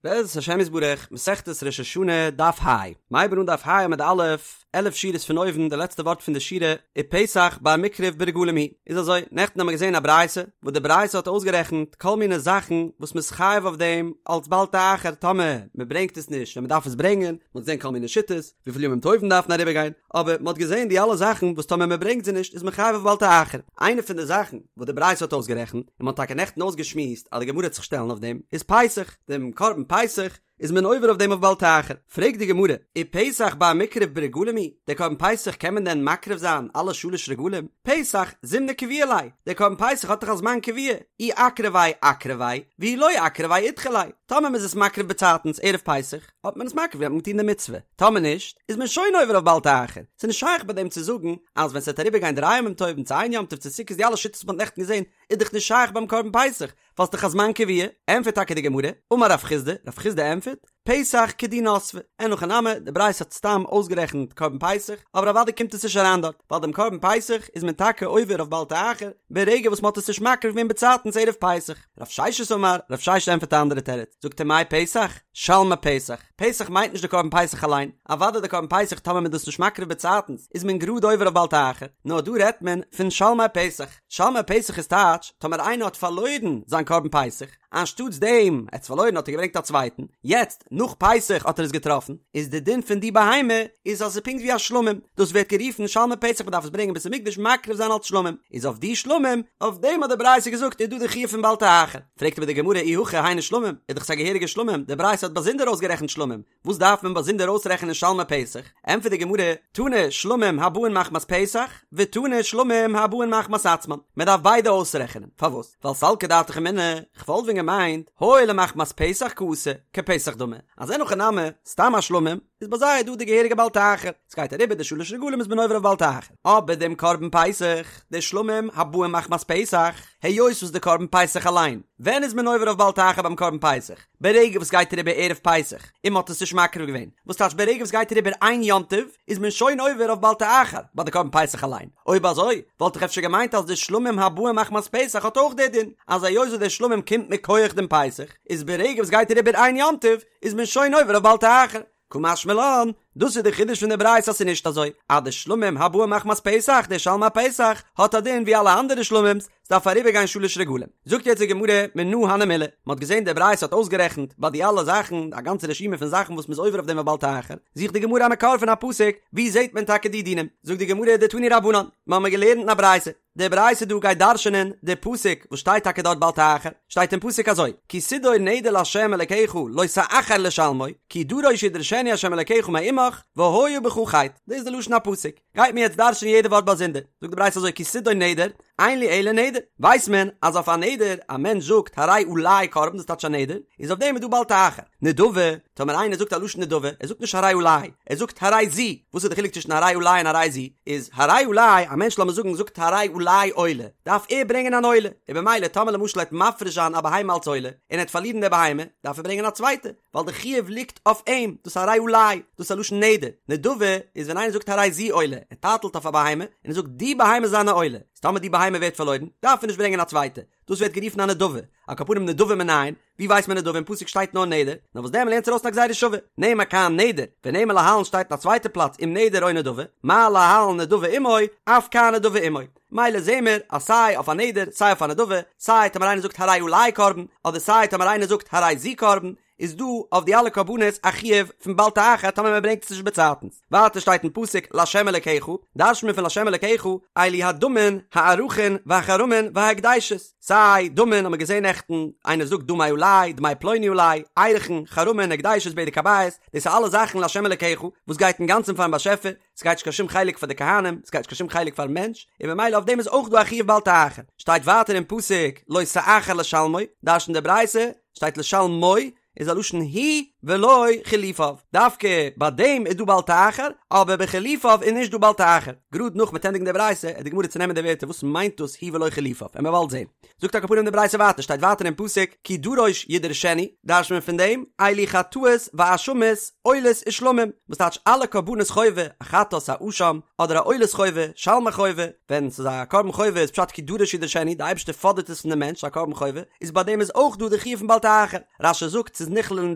בעזרת השם יתברך, מסכת ראש השנה, דף ה. מ'הייבן אן דף ה עמוד א', 11 שורות פון אויבן, די לעצטע ווארט פון די שורה, ופסח בר מיקרב ברגלים הוא. איז אזוי, נעכטן האבן מיר געזען א ברייתא, וואס די ברייתא האט אויסגערעכנט כל מיני זאכן וואס מ'איז חייב אויף דעם אלס בל תאחר טאמער מ'ברענגט עס נישט ווען מ'דארף עס ברענגען, מ'האט געזען כל מיני שיטות, וויפיל ימים טובים דארפן אריבערגיין, אבער מ'האט געזען די אלע זאכן וואס טאמער מ'ברענגט זיי נישט איז מען חייב אויף בל תאחר. איינע פון די זאכן וואס די ברייתא האט אויסגערעכנט, און מ'האט טאקע נעכטן אויסגעשמועסט אז די גמרא וועט זיך שטעלן אויף דעם, איז פסח, דעם קרבן פסח איז מען עובר אויף דעם אויף בל תאחר. פרעגט די גמרא, ופסח בר מיקרב ברגלים הוא, דער קרבן פסח קען מען דען מקריב זיין אלע שלש רגלים? פסח זימנא קביעא ליה, דער קרבן פסח האט דאך א זמן קבוע, אי אקרביה אקרביה, ואי לא אקרביה אידחי ליה, טאמער מ'איז עס מקריב באצייטנס ערב פסח, האט מען עס מקריב געווען האט מען געטון די מצוה, טאמער נישט איז מען שוין עובר אויף בל תאחר, ס'איז נישט שייך ביי דעם צו זאגן אז ווען ס'וועט אריבער גיין דריי ימים טובים צו איין יום טוב צו סוכות די אלע שיטות וואס מ'האט נעכטן געזען איז דאך נישט שייך ביים קרבן פסח ווייל ס'דאך א זמן קבוע, ענטפערט טאקע די גמרא, אמר רב חסדא, רב חסדא ענטפערט, פסח כדי נסבה, אין הכי נמי, די ברייתא האט סתם אויסגערעכנט קרבן פסח, אבער אוודאי קומט עס נישט אריין דארט, ווייל דעם קרבן פסח איז מען טאקע עובר אויף בל תאחר ברגע וואס מ'האט עס נישט מקריב געווען באצייטנס ערב פסח. רב ששת אמר, רב ששת ענטפערט א אנדערע תירוץ, זאגט ער מאי פסח? שלמי פסח, פסח מיינט נישט די קרבן פסח אליין, אוודאי די קרבן פסח טאמער מען איז דאס נישט מקריב באצייטנס איז מען גראד עובר אויף בל תאחר, נאר דא רעדט מען פון שלמי פסח, שלמי פסח איז טייטש טאמער איינער האט פארלוירן זיין קרבן פסח, אנשטאטס דעם ער האט עס פארלוירן האט ער געברענגט א צווייטן, יעצט נאך פסח האט ער עס געטראפן, איז די דין פון די בהמה איז אז עס איז פונקט ווי א שלמים, דאס ווערט גערופן שלמי פסח מען דארף עס ברענגען בית המקדש מקריב זיין אלס שלמים, איז אויף די שלמים, אויף דעם האט די ברייתא געזאגט איז דא די חיוב פון בל תאחר. פרעגט אבער די גמרא אי הכי היינו שלמים, איז דאך עס א געהעריגע שלמים, די ברייתא האט באזונדער אויסגערעכנט שלמים, וואס דארף מען באזונדער אויסרעכענען שלמי פסח? ענטפערט די גמרא, תנא שלמים הבאין מחמת פסח, ותנא שלמים הבאין מחמת עצמן, מען דארף ביידע אויסרעכענען, פארוואס? ווייל סלקא דעתך אמינא, כ'וואלט ווען געמיינט, הואיל ומחמת פסח קאתי, כפסח דמי, אז אין הכי נמי, סתם א שלמים, איז ביי זיי דא די געהעריגע בל תאחר, ס'גייט אריבער די שלש רגלים איז מען עובר אויף בל תאחר, אבער דעם קרבן פסח, די שלמים הבאים מחמת פסח, היות וואס די קרבן פסח אליין, ווען איז מען עובר אויף בל תאחר ביים קרבן פסח? ברגע וואס גייט אריבער ערב פסח און מ'האט עס נישט מקריב געווען, וואס טייטש ברגע וואס גייט אריבער איין יום טוב איז מען שוין עובר אויף בל תאחר ביי די קרבן פסח אליין, אויב אזוי וואלט איך אפשר געמיינט אז די שלמים הבאים מחמת פסח האט אויך די דין, אז היות וואס די שלמים קומט מכח דעם פסח, איז ברגע וואס גייט אריבער איין יום טוב איז מען שוין עובר אויף בל תאחר. קא משמע לן, דאס איז די חידוש פון די ברייתא אז ס'איז נישט אזוי אז די שלמים הבאים מחמת פסח, די שלמי פסח, האט א דין ווי אלע אנדערע שלמים'ס, ס'דארף אריבערגיין שלש רגלים. זאגט יעצט די גמרא מנא הני מילי, מ'האט געזען די ברייתא האט אויסגערעכנט ביי די אלע זאכן א גאנצע רשימה פון זאכן וואס מ'איז עובר אויף דעם בל תאחר, זוכט די גמרא א מקור פון א פסוק, וואו זעט מען טאקע די דינים? זאגט די גמרא דתנו רבנן, מ'האמיר געלערנט אין א ברייתא, די ברייתא דא גייט דרש'ענען די פסוק וואס שטייט טאקע דארט בל תאחר, שטייט אין פסוק אזוי, כי תדור נדר לה' אלקיך לא תאחר לשלמו, כי דרוש ידרשנו ה' אלקיך מעמך, והיה בך חטא, דאס איז די לשון הפסוק, גייט מען יעצט דרש'ענען יעדע ווארט באזונדער, זאגט די ברייתא אזוי כי תדור נדר, אין לי אלא נדר, ווייסט מען אז אויף א נדר, א מענטש זאגט הרי עלי קרבן דאס טייטש א נדר, איז אויף דעם איז דא בל תאחר, נדבה, טאמער איינער זאגט א לשון נדבה, ער זאגט נישט הרי עלי, ער זאגט הרי זו, וואס איז די חילוק צווישן הרי עלי און הרי זו? איז הרי עלי, א מענטש לאמיר זאגן זאגט הרי עלי עולה, דארף ער ברענגען אן עולה, און במילא טאמער למשל ער וועט מפריש זיין א בהמה אלס עולה, און ער וועט פארלירן די בהמה, דארף ער ברענגען א צווייטע, ווייל די חיוב ליגט אויף אים, דאס הרי עלי, דאס איז א לשון נדר, נדבה איז ווען איינער זאגט הרי זו עולה, ער טייטלט אויף א בהמה, און ער זאגט די בהמה איז זיין עולה, איז טאמער די בהמה ווערט פארלוירן, דארף ער נישט ברענגען א צווייטע, דאס ווערט גערופן א נדבה, על כל פנים נדבה מנין, ווי ווייסט מען נדבה אין פסוק שטייט נאר נדר, נאר וואס דען מ'לערנט ארויס א גזירה שווה, נאמר כאן נדר, ונאמר להלן שטייט אין א צווייטע פלאץ אם נדר או נדבה, מה להלן נדבה עמו, אף כאן נדבה עמו. מילא זעהן מיר אז סיי אויף א נדר סיי אויף א נדבה, סיי טאמער איינער זאגט הרי עלי קרבן, אדער סיי טאמער איינער זאגט הרי זו קרבן, איז דא אויף די אלע קרבנות א חיוב פון בל תאחר טאמער מען ברענגט עס נישט באצייטנס. ווייטער שטייט אין פסוק לה' אלקיך, דרש'נט מען פון לה' אלקיך, אלו הדמין, הערכין, והחרמין, וההקדשות. סיי דמין האט מען געזען נעכטן, איינער זאגט דמי עלי, דמי פלוני עלי, ערכין, חרמין, הקדשות, בדק הבית, דאס איז אלע זאכן לה' אלקיך, וואס גייט אינגאנצן פארן באשעפער, ס'גייט נישט קיין שום חלק פאר די כהנים, ס'גייט נישט קיין שום חלק פארן מענטש, און במילא אויף דעם איז אויך דא א חיוב בל תאחר. שטייט ווייטער אין פסוק לא תאחר לשלמו, דרש'נט די ברייתא, שטייט לשלמו, איז א לשון הוא ולא חילופיו, דווקא ביי דעם איז דא בל תאחר, אבער ביי חילופיו איז נישט דא בל תאחר. גראד נאך מ'וועט ענדיגן די ברייתא, וועט די גמרא צונעמען די ווערטער וואס מיינט דאס הוא ולא חילופיו, וועלן מיר באלד זען. זאגט על כל פנים די ברייתא ווייטער, שטייט ווייטער אין פסוק כי דרוש ידרשנו, דרש'נט מען פון דעם, אלו חטאות ואשמות, עולות ושלמים, וואס טייטש אלע קרבנות חובה, א חטאת, א אשם, אדער א עולת חובה, שלמי חובה, ווען ס'איז א קרבן חובה איז פשט כי דרוש ידרשנו, די אייבערשטער פאדערט עס פון די מענטש, א קרבן חובה, איז ביי דעם איז אויך דא די חיוב פון בל תאחר. רש"י זאגט ס'איז. איז נכלל אין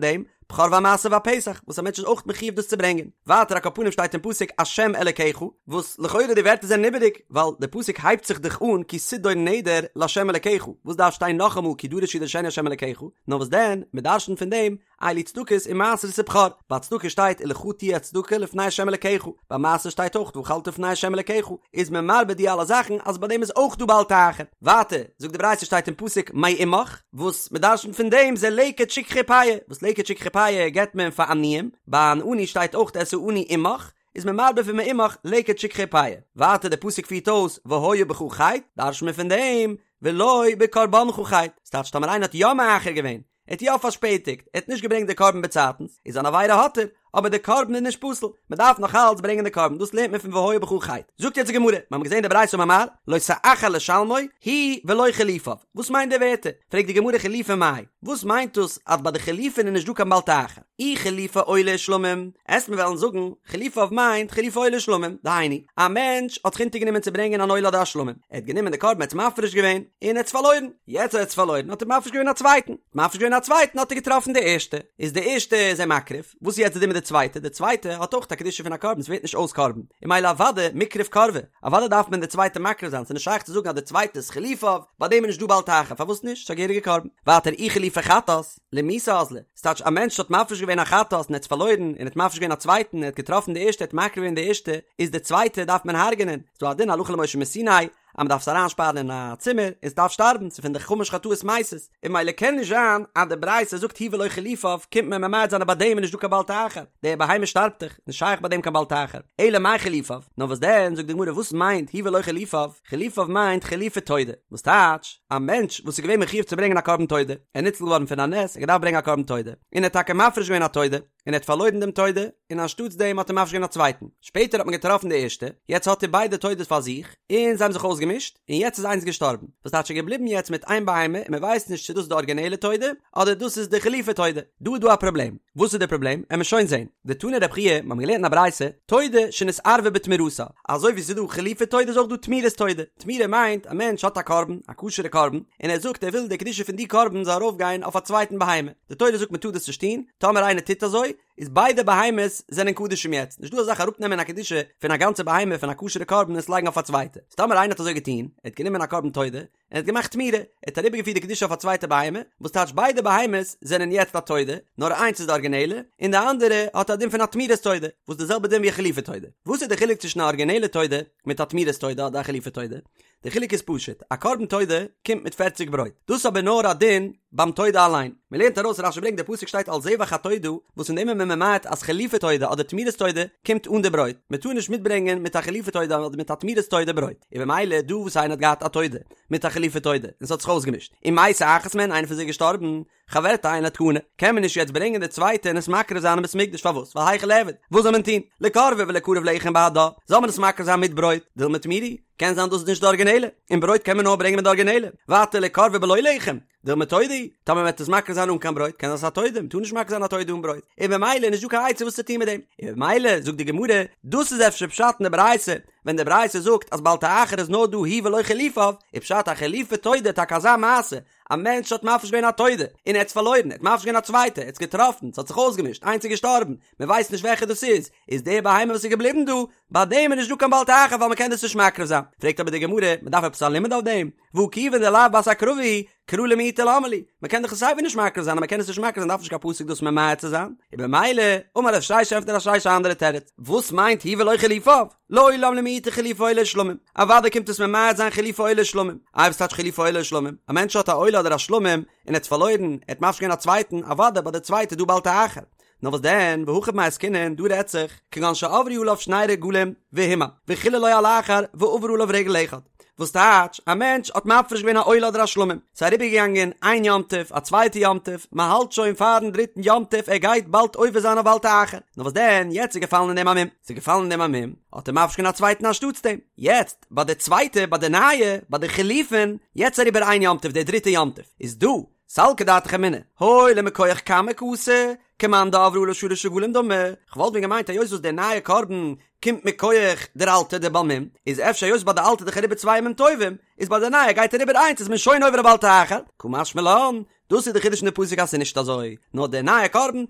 דעם, בכור והמעשר והפסח, וואס א מענטש איז אויך מחיוב דאס צו ברענגען. ווייטער על כל פנים שטייט אין פסוק השם אלקיך, וואס לכאורה די ווערטער זענען איבעריג, ווייל די פסוק הייבט זיך דאך אן כי תדור נדר לה' אלקיך, וואס דארף שטיין נאכאמאל כי דרוש ידרשנו ה' אלקיך, נאר וואס דען, מען דרשנ'ט פון דעם, אלו צדקות ומעשרות ובכור, ביי צדקה שטייט ולך תהיה הצדקה לפני ה' אלקיך, ביי מעשר שטייט אויך ואכלת לפני ה' אלקיך, איז מען מרבה די אלע זאכן אז ביי דעם איז אויך דא בל תאחר. ווייטער זאגט די ברייתא שטייט אין פסוק מעמך, וואס מען דרשנ'ט פון דעם זה לקט שכחה פאה, וואס לקט שכחה פאה געבט מען פאר עניים, ביי אן עני שטייט אויך את העני עמך, איז מען מרבה פון מעמך לקט שכחה פאה. ווייטער די פסוק פירט אויס והיה בך חטא, דרש'נט מען פון דעם ולא בקרבנך חטא, ס'טייטש טאמער איינער האט יא מאחר געווען, ער האט יא פארשפעטיגט, ער האט נישט געברענגט די קרבן באצייטנס, איז אן עבירה האט ער, אבער די קרבן איז נישט פסול, מען דארף נאך אלץ ברענגען די קרבן, דאס לערנט מען פון והיה בך חטא. זאגט יעצט די גמרא, מיר האבן געזען די ברייתא אמר מר, לא תאחר לשלמו, הוא ולא חילופיו, וואס מיינט די ווערטער? פרעגט די גמרא חילופי מאי, וואס מיינט דאס אז ביי די חילופין איז נישט דא קיין בל תאחר? אי חילופי עולה ושלמים, עסט מיר וועלן זאגן, חילופיו מיינט חילופי עולה ושלמים, דהיינו, א מענטש האט זיך אונטערגענומען צו ברענגען אן עולה אדער א שלמים, ער האט גענומען די קרבן ער האט עס מפריש געווען, און ער האט עס פארלוירן, יעצט אז ער האט עס פארלוירן האט ער מפריש געווען א צווייטן, מפריש געווען א צווייטן האט ער געטראפן די ערשטע, איז די ערשטע איז ער מקריב, וואס איז יעצט די דין מיט די צווייטע, די צווייטע האט אויך א קדושה פון א קרבן, ס'ווערט נישט אויס קרבן, און ממילא אוודאי מיקרב קרבי, אוודאי דארף מען די צווייטע מקריב זיין, ס'איז נישט שייך צו זאגן אז די צווייטע איז חילופיו, ביי דעם איז נישט דא בל תאחר, פארוואס נישט? ס'איז א געהעריגע קרבן. ווייטער אי חילופי חטאת, למיתה אזלא, ס'טייטש א מענטש האט מפריש געווען א חטאת און ער האט עס פארלוירן, און ער האט מפריש געווען א צווייטן, ער האט געטראפן די ערשטע, ער האט מקריב געווען די ערשטע, איז די צווייטע דארף מען הרג'נען, ס'דא א דין הלכה למשה מסיני, אז מען דארף עס אריינשפארן אין א צימער און ס'דארף שטארבן, ס'איז פון די חמש חטאות מתות, און ממילא קען נישט זיין אז די ברייתא זאגט הוא ולא חילופיו, קומט מען ממעט זיין אז ביי דעם איז נישט דא קיין בל תאחר, די בהמה שטארבט דאך, נישט שייך ביי דעם קיין בל תאחר, אלא מאי חילופיו, נאר וואס דען, זאגט די גמרא וואס מיינט הוא ולא חילופיו, חילופיו מיינט חילופי תודה, וואס טייטש, א מענטש וואס איז געווען מחיוב צו ברענגען א קרבן תודה, ער איז ניצל געווארן פון א נס, ער האט געדארפט ברענגען א קרבן תודה, און ער האט טאקע מפריש געווען א תודה, און ער האט פארלוירן דעם תודה, און אנשטאטס דעם האט ער מפריש געווען א צווייטן, שפעטער האט מען געטראפן די ערשטע, יעצט האט ער ביידע תודות פאר זיך, און זיי האבן זיך אויסגעמישט, און יעצט איז איינס געשטארבן, וואס טייטש ער איז געבליבן יעצט מיט איין בהמה, און מען ווייסט נישט צו דאס איז די ארגינעלע תודה, אדער דאס איז די חילופי תודה, דא איז דא א פראבלעם, וואס איז די פראבלעם? עמער שוין זען. דתני רב חייא, מיר האבן געלערנט אין א ברייתא, תודה שנתערבה בתמורתה, אזוי ווי ס'איז דא חילופי תודה איז אויך דא תמורת תודה, תמורה מיינט א מענטש האט א קרבן, א כשר'ע קרבן, און ער זאגט ער וויל די קדושה פון די קרבן זאל ארויפגיין אויף א צווייטן בהמה, די תורה זאגט מען טאר דאס נישט טון, טאמער איינער טוט אזוי, איז ביידע בהמות זענען קדשים יעצט, נישט דא אזא זאך אראפנעמען א קדושה פון א גאנצע בהמה פון א כשר'ע קרבן און עס לייגן אויף א צווייטע, איז טאמער איינער האט אזוי געטון, ער האט גענומען א קרבן תודה, און ער האט געמאכט תמורה, ער האט אריבערגעפירט די קדושה אויף א צווייטע בהמה, וואס טייטש ביידע בהמות זענען יעצט א תודה, נאר איינס איז די ארגינעלע, און די אנדערע האט א דין פון א תמורת תודה, וואס די זעלבע דין ווי א חילופי תודה. וואס איז די חילוק צווישן א ארגינעלע תודה מיט א תמורת תודה אדער א חילופי תודה? די חילוק איז פשוט, א קרבן תודה קומט מיט פערציג ברויט, דאס איז אבער נאר א דין ביים תודה אליין, מען לערנט ארויס רשי ברענגט די פסוק שטייט על זבח התודה, וואס פון דעם איז מען ממעט אז חילופי תודה אדער תמורת תודה קומט אן די ברויט, מען טאר נישט מיטברענגען מיט א חילופי תודה אדער מיט א תמורת תודה ברויט, און במילא דא וואס איינער האט געהאט א תודה מיט א חילופי תודה און ס'האט זיך אויסגעמישט, ומתה אחת מהן איינער פון זיי איז געשטארבן, חברתה אינה תקנה, קען מען נישט יעצט ברענגען די צווייטע און עס מקריב זיין אין בית מקדש, פארוואס? ווייל היכי ליעבד, וואס זאל מען טון? ליקרבה וליקרב לחם בהדה, זאל מען עס מקריב זיין מיט ברויט, דילמא תמורה היא, קען זיין דאס איז נישט די ארגינעלע, און ברויט קען מען נאר ברענגען מיט די ארגינעלע, ווייטער ליקרבה בלא לחם, דילמא תודה היא, טאמער מען וועט עס מקריב זיין אן קיין ברויט, קען זיין ס'איז א תודה, מען טאר נישט מקריב זיין א תודה אן ברויט, און במילא איז נישט דא קיין עצה וואס צו טון מיט דעם, און במילא זאגט די גמרא, דאס איז אפשר פשט אין די ברייתא, ווען די ברייתא זאגט אז בל תאחר איז נאר דא הוא ולא חילופיו, איז פשט א חילופי תודה טאקע אזא מעשה, א מענטש האט מפריש געווען א תודה, און ער האט עס פארלוירן, ער האט מפריש געווען א צווייטע, ער האט עס געטראפן, ס'האט זיך אויסגעמישט, איינס איז געשטארבן, מען ווייסט נישט וועלכע דאס איז, איז די בהמה וואס איז געבליבן דא, ביי דעם איז נישט דא קיין בל תאחר ווייל מען קען דאס נישט מקריב זיין. פרעגט אבער די גמרא, מען דארף עפעס א לימוד אויף דעם? והא כיוון דלאו בת הקרבה היא, קרא למעוטי למה לי, מען קען דאך עס סייווי נישט מקריב זיין, אז מען קען עס נישט מקריב זיין דארף נישט קיין פסוק דאס ממעט צו זיין, און במילא, אמר רב ששת ענטפערט רב ששת א אנדערע תירוץ, וואס מיינט הוא ולא חילופיו? לעולם למעוטי חילופי עולה ושלמים, אוודאי קומט עס ממעט זיין חילופי עולה ושלמים, איי וואס טייטש חילופי עולה ושלמים? א מענטש האט א עולה אדער א שלמים און ער האט עס פארלוירן, ער האט מפריש געווען א צווייטן, אוודאי ביי די צווייטע איז דא בל תאחר. נאר וואס דען, והכא במאי עסקינן, דא רעדט זיך, כגון שעברו עליו שני רגלים והומר, וחיללו על אחר ועבר עליו רגל אחד. וואס טייטש, א מענטש האט מפריש געווען א עולה אדער א שלמים, ס'איז אריבערגעגאנגען איין יום טוב, א צווייטע יום טוב, מען האלט שוין פארן דריטן יום טוב, ער גייט באלד עובר זיין אויף בל תאחר, נאר וואס דען, יעצט איז געפאלן אין דעם א מום, ס'איז געפאלן אין דעם א מום, האט ער מפריש געווען א צווייטן אנשטאטס דעם, יעצט ביי די צווייטע, ביי די נייע, ביי די חילופין, יעצט אריבער איין יום טוב, דער דריטע יום טוב, איז דא, סלקא דעתך אמינא, הואיל ומכח קמא קאתי, כמאן דעברו עליו שלש רגלים דמי, כ'וואלט ווען געמיינט היות וואס דער נייע קרבן קומט מכח דער אלטער דער בעל מום, איז אפשר היות ביי די אלטע איז דאך אריבער צוויי ימים טובים, איז ביי די נייע גייט אריבער איינס איז מען שוין עובר א בל תאחר, קא משמע לן, דאס איז די חידוש אין די פסוק אז ס'איז נישט אזוי, נאר די נייע קרבן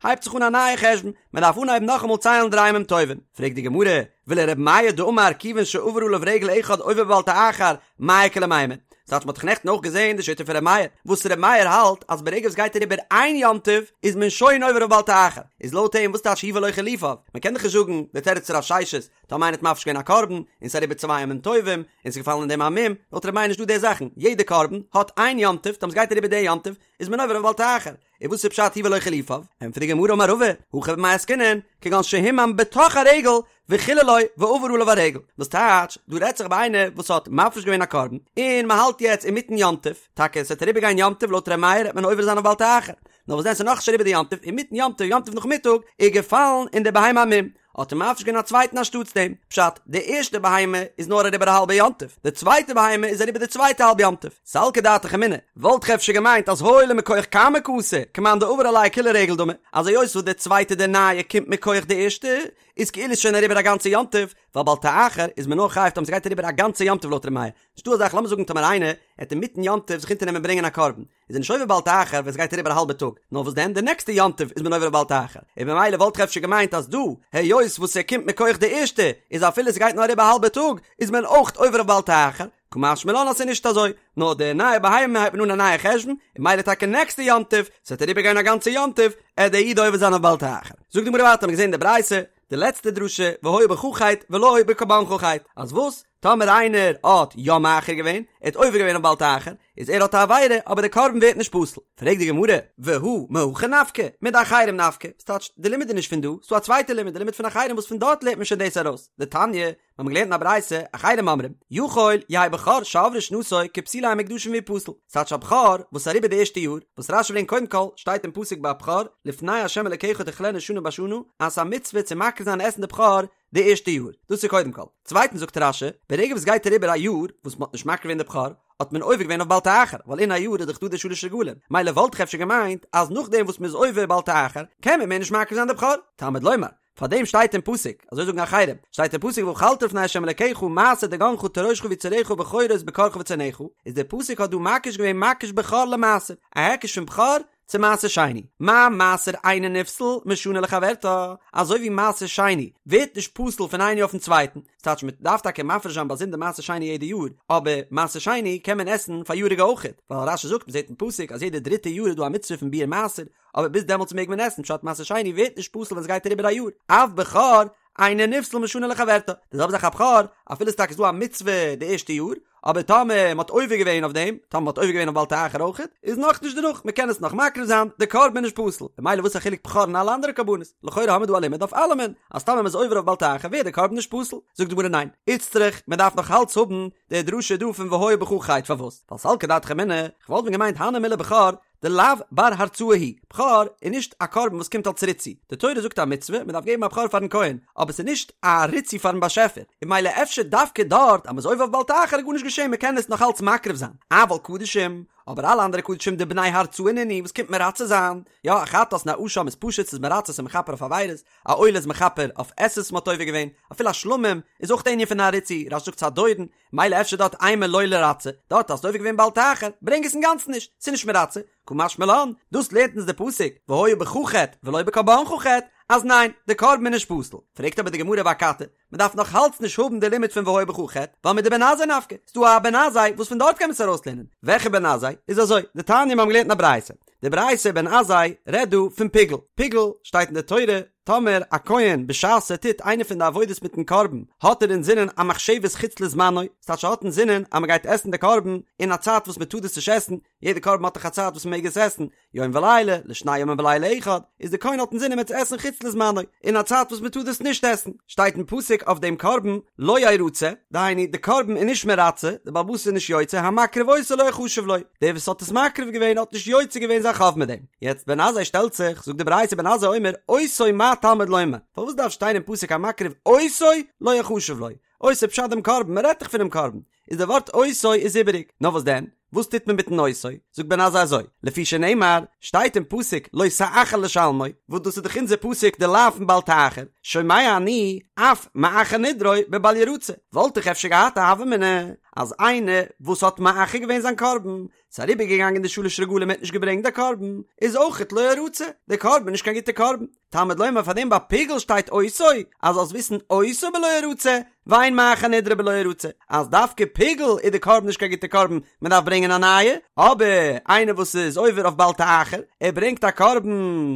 הייבט זיך אן א נייע חשבון, מען דארף אנהייבן נאכאמאל ציילן דריי ימים טובים. פרעגט די גמרא, ולר' מאיר דאמר כיוון שעבר עליו רגל אחד עובר בבל תאחר, מאי איכא למימר? ס'טייטש מ'האט דאך נעכטן אויך געזען די שיטה פון ר' מאיר, וואס ר' מאיר האלט אז ברגע וואס גייט אריבער איין יום טוב איז מען שוין עובר אויף בל תאחר, איז לויט אים וואס טייטש הוא ולא חילופיו? מ'קען דאך נישט זאגן די תירוץ פון רב ששת, טאמער איינער האט מפריש געווען א קרבן און ס'איז אריבער צוויי ימים טובים און ס'איז געפאלן אין דעם א מום, לויט ר' מאיר נישט דא די זאכן, יעדע קרבן האט איין יום טוב, טאמער ס'גייט אריבער די יום טוב איז מען עובר אויף בל תאחר, און וואס איז פשט הוא ולא חילופיו? ענטפערט די גמרא אמר רבא, הכא במאי עסקינן, כגון שהומם בתוך הרגל וחיללו ועבר עליו הרגל, וואס טייטש, דא רעדט זיך ביי איינער וואס האט מפריש געווען א קרבן, און מען האלט יעצט אינמיטן יום טוב, טאקע עס וועט אריבער גיין יום טוב לויט ר' מאיר וועט מען עובר זיין אויף בל תאחר, נאר וואס דען ס'איז נאכנישט אריבער די יום טוב, אינמיטן יום טוב, יום טוב נאכמיטאג, איז געפאלן אין די בהמה א מום, האט ער מפריש געווען א צווייטן אנשטאטס דעם, פשט, די ערשטע בהמה איז נאר אריבער א האלבע יום טוב, די צווייטע בהמה איז אריבער די צווייטע האלב יום טוב. סלקא דעתך אמינא, וואלט איך אפשר געמיינט אז הואיל ומכח קמא קאתי, כמאן דעבר עליה כולה רגל דמי, אז היות וואס די צווייטע די נייע קומט מכח די ערשטע, איז כאילו ס'שוין אריבער א גאנצע יום טוב, ווייל בל תאחר איז מען נאר חייב טאמער ס'גייט אריבער א גאנצע יום טוב לויט ר' מאיר. נישטא אזא זאך לאמיר זאגן טאמער איינער העט אינמיטן יום טוב זיך אונטערנעמען ברענגען א קרבן, איז ער נישט עובר בל תאחר ווען ס'גייט אריבער א האלבע טאג, נאר וואס דען די נעקסטע יום טוב איז מען עובר בל תאחר, און במילא וואלט איך אפשר געמיינט אז דא, היות וואס ער קומט מכח די ערשטע, איז אפילו ס'גייט נאר אריבער א האלבע טאג, איז מען אויך עובר אויף בל תאחר, קא משמע לן אז ס'איז נישט אזוי, נאר די נייע בהמה הייבט מען אן א נייע חשבון, און מילא טאקע נעקסטע יום טוב, ס'וועט אריבער גיין א גאנצע יום טוב, עט דער איד עובר זיין אויף בל תאחר. זאגט די גמרא ווייטער, האמיר געזען אין די ברייתא, די לעצטע דרשה, והיה בך חטא ולא בקרבנך חטא, אז וואס? טאמער איינער האט יא מאחר געווען, ער האט עובר געווען אויף בל תאחר, איז ער האט א עבירה, אבער די קרבן ווערט נישט פסול. פרעגט די גמרא, והא מהכא נפקא, מדאחרים נפקא, ס'טייטש, די לימוד איז נישט פון דא, ס'דא א צווייטע לימוד, די לימוד פון אחרים וואס פון דארט לערנט מען שוין דאס ארויס, דתניא, מיר האבן געלערנט אין א ברייתא, אחרים אומרים, יכול יהא בכור שעברה שנתו כפסולי המוקדשין ויפסל, ס'טייטש א בכור וואס איז אריבער די ערשטע יאר, וואס רשי ברענגט קודם כל, שטייט אין פסוק ביי בכור, לפני ה' אלקיך תאכלנו שנה בשנה, אז ס'איז א מצוה צו מקריב זיין און עסן די בכור די ערשטע יאר, דאס איז קודם כל. צווייטנס זאגט רשי, ברגע וואס גייט אריבער א יאר וואס מ'האט נישט מקריב געווען די בכור, האט מען עובר געווען אויף בל תאחר, ווייל אין א יאר איז דאך דא די שלש רגלים, מילא וואלט איך אפשר געמיינט אז נאכדעם וואס מ'איז עובר בל תאחר, קען מען מער נישט מקריב זיין די בכור. תלמוד לומר, פארדעם שטייט אין פסוק, אזוי זאגן אחרים, שטייט אין פסוק ואכלת לפני ה' אלקיך מעשר דגנך תירושך ויצהרך בכורות בקרך וצאנך, איז דער פסוק האט דא מקיש געווען מקיש בכור למעשר, א היקש פון בכור צו מעשר שני, מה מעשר אינו נפסל משנה לחברתה, אזוי ווי מעשר שני ווערט נישט פסול פון איין יאר אויפן צווייטן, ס'טייטש מען דארף טאקע מפריש זיין באזונדער מעשר שני יעדע יאר, אבער מעשר שני קען מען עסן פאריאריגע אויכעט, ווייל רשי זאגט מ'זעט אין פסוק אז יעדע דריטע יאר איז דא א מצוה פון ביעור מעשר, אבער ביז דעמאלטס מעג מען עסן, פשט מעשר שני ווערט נישט פסול ווען ס'גייט אריבער א יאר, אף בכור אינו נפסל משנה לחברתה, די זעלבע זאך א בכור, אפילו ס'טאקע איז דא א מצוה די ערשטע יאר, אבער טאמער מ'האט עובר געווען אויף דעם, טאמער מ'האט עובר געווען אויף בל תאחר אויכעט, איז נאכנישט דערנאך, מ'קען עס נאך מקריב זיין, די קרבן איז נישט פסול, ממילא וואס א חילוק בכור און אלע אנדערע קרבנות? לכאורה האמיר דא א לימוד אויף אלעמען, אז טאמער מ'איז עובר אויף בל תאחר ווערט די קרבן נישט פסול. זאגט די גמרא ניין, איצטריך, מ'דארף נאך אלץ האבן די דרשה דא פון והיה בך חטא, פארוואס? ווייל סלקא דעתך אמינא, כ'וואלט ווען געמיינט הני מילי בכור, דלאו בר הרצאה הוא, בכור איז נישט א קרבן וואס קומט אלס ריצוי, די תורה זאגט א מצוה, מען דארף געבן א בכור פארן כהן, אבער ס'איז נישט א ריצוי פארן באשעפער, און מילא אפשר דווקא דארט אז מ'איז עובר אויף בל תאחר איז גארנישט געשען מ'קען עס נאך אלץ מקריב זיין, אבל קדשים, אבער אלע אנדערע קדשים דבני הרצאה נינהו וואס קומט מרצה זיין, יא א חטאת און א אשם איז פשוט ס'איז מרצה ס'איז מכפר אויף עבירות, א עולה איז מכפר אויף עשה'ס וואס מ'האט עובר געווען, אפילו א שלמים איז אויך די ענין פון א ריצוי, רש"י זאגט ס'איז א דורון, מילא אפשר דארט אימא לא לירצי, דארט האסטו עובר געווען בל תאחר, ברענג עס אינגאנצן נישט, ס'איז נישט מרצה, קא משמע לן, דאס לערנט אונז די פסוק, והיה בך חטא ולא בקרבנך חטא, אז ניין, די קרבן איז נישט פסול. פרעגט אבער די גמרא ואכתי, מען דארף נאך אלץ נישט האבן די לימוד פון והיה בך חטא, ווייל מדבן עזאי נפקא, ס'דא א בן עזאי וואס פון דארט קען מען עס ארויסלערנען. וועלכע בן עזאי? איז אזוי, דתניא מיר האבן געלערנט אין א ברייתא, די ברייתא בן עזאי רעדט דא פון פיגול, פיגול שטייט אין די תורה, טאמער א כהן בשעת ער טוט איינע פון די עבודות מיטן קרבן האט ער אינזינען א מחשבת חוץ לזמנו, ס'טייטש ער האט אינזינען אז מ'גייט עסן די קרבן אין א צייט וואס מ'טאר דאס נישט עסן, יעדע קרבן האט דאך א צייט וואס מ'מעג עס עסן, יום ולילה, לשני ימים ולילה אחד, איז די כהן האט אינזינען מ'עט עס עסן חוץ לזמנו, אין א צייט וואס מ'טאר דאס נישט עסן, שטייט אין פסוק אויף דעם קרבן לא ירצה, דהיינו די קרבן איז נישט מרצה, די בעל הבית איז נישט יוצא, המקריב אותו לא יחשב לו, דער וואס האט עס מקריב געווען האט נישט יוצא געווען זיין חוב מיט דעם. יעצט בן עזאי שטעלט זיך, זאגט די ברייתא בן עזאי אומר, אותו מה תלמוד לומר, פארוואס דארף שטיין אין פסוק המקריב אותו לא יחשב לו, אותו פשט דעם קרבן, מען רעדט דאך פונעם קרבן, איז די ווארט אותו איז איבעריג, נאר וואס דען, וואס טוט מען מיטן אותו, זאגט בן עזאי אזוי, לפי שנאמר, שטייט אין פסוק לא תאחר לשלמו, וואס דאס איז דאך אונזער פסוק די לאו פון בל תאחר, שומע אני, אף מאחר נדרו בבל ירצה, וואלט איך אפשר געהאט א הוה אמינא, אז איינער וואס האט מאחר געווען זיין קרבן, ס'איז אריבערגעגאנגען די שלש רגלים ער האט נישט געברענגט די קרבן, איז אויכעט לא ירצה, די קרבן איז נישט קיין גוטע קרבן. תלמוד לומר פאר דעם ביי פיגול שטייט אותו, אז זאלסט וויסן אותו בלא ירצה, ואין מאחר נדרו בלא ירצה, אז דווקא פיגול איז די קרבן נישט קיין גוטע קרבן, מען דארף ברענגען א נייע, אבער איינער וואס איז עובר אויף בל תאחר, ער ברענגט א קרבן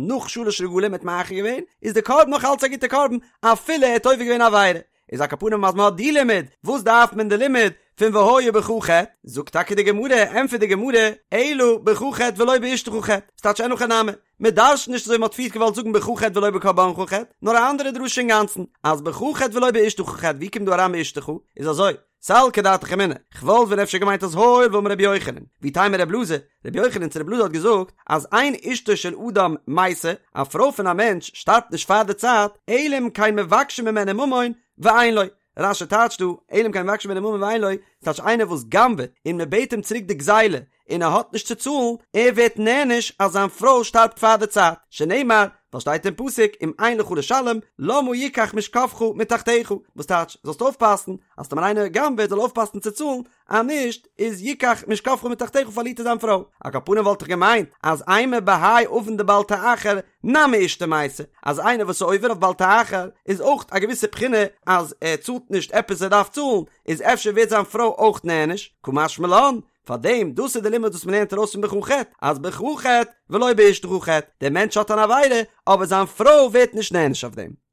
נאך שלש רגלים ער האט מאחר געווען, איז די קרבן נאך אלץ א גוטע קרבן, אפילו ער האט עובר געווען א עבירה. איז על כל פנים אז מען האט די לימוד, וואס דארף מען די לימוד פון והיה בך חטא? זאגט טאקע די גמרא, ענטפערט די גמרא, אלא בך חטא ולא באשתך חטא, ס'טייטש אין הכי נמי, מען דרש'נט נישט אזוי ווי מען האט פריערט געוואלט זאגן בך חטא ולא בקרבנך חטא, נאר א אנדערע דרשה אינגאנצן, אז בך חטא ולא באשתך חטא, ווי קומט דא אריין באשתך? איז אזוי, סלקא דעתך אמינא, כ'וואלט ווען אפשר געמיינט אז הואיל ואמר רבי יוחנן, ואיתימא רב אלעזר, רבי יוחנן צו רב אלעזר האט געזאגט אז אין אשתו של אדם מתה, א פרוי פון א מענטש שטארבט נישט פאר די צייט, אלא אם כן מבקשים ממנו ממון ואין לו. רש"י טייטשט דא, אלא אם כן מבקשים ממנו ממון ואין לו, ס'טייטש איינער וואס גנב'עט און מ'בעט אים צוריק די גזילה און ער האט נישט צו צאלן, ער ווערט נענש אז זיין פרוי שטארבט פאר די צייט, שנאמר, ווייל שטייט אין פסוק אם אין לך לשלם למה יקח משכבך מתחתיך, וואס טייטש, זאלסט אויפפאסן אז טאמער איינער גנב'עט זאל אויפפאסן צו צאלן, אז נישט איז יקח משכבך מתחתיך פארלירט ער זיין פרוי. על כל פנים וואלט איך געמיינט אז אימא בהאי עוון דבל תאחר נמי אשתו מתה, אז איינער וואס איז עובר אויף בל תאחר איז אויך א געוויסע בחינה אז ער צאלט נישט עפעס ער דארף צאלן, איז אפשר ווערט זיין פרוי אויך נענש, קא משמע לן, פארדעם דאס איז די לימוד וואס מ'לערנט ארויס פון בך חטא, אז בך חטא ולא באשתך חטא, דער מענטש האט אן עבירה אבער זיין פרוי ווערט נישט נענש אויף דעם.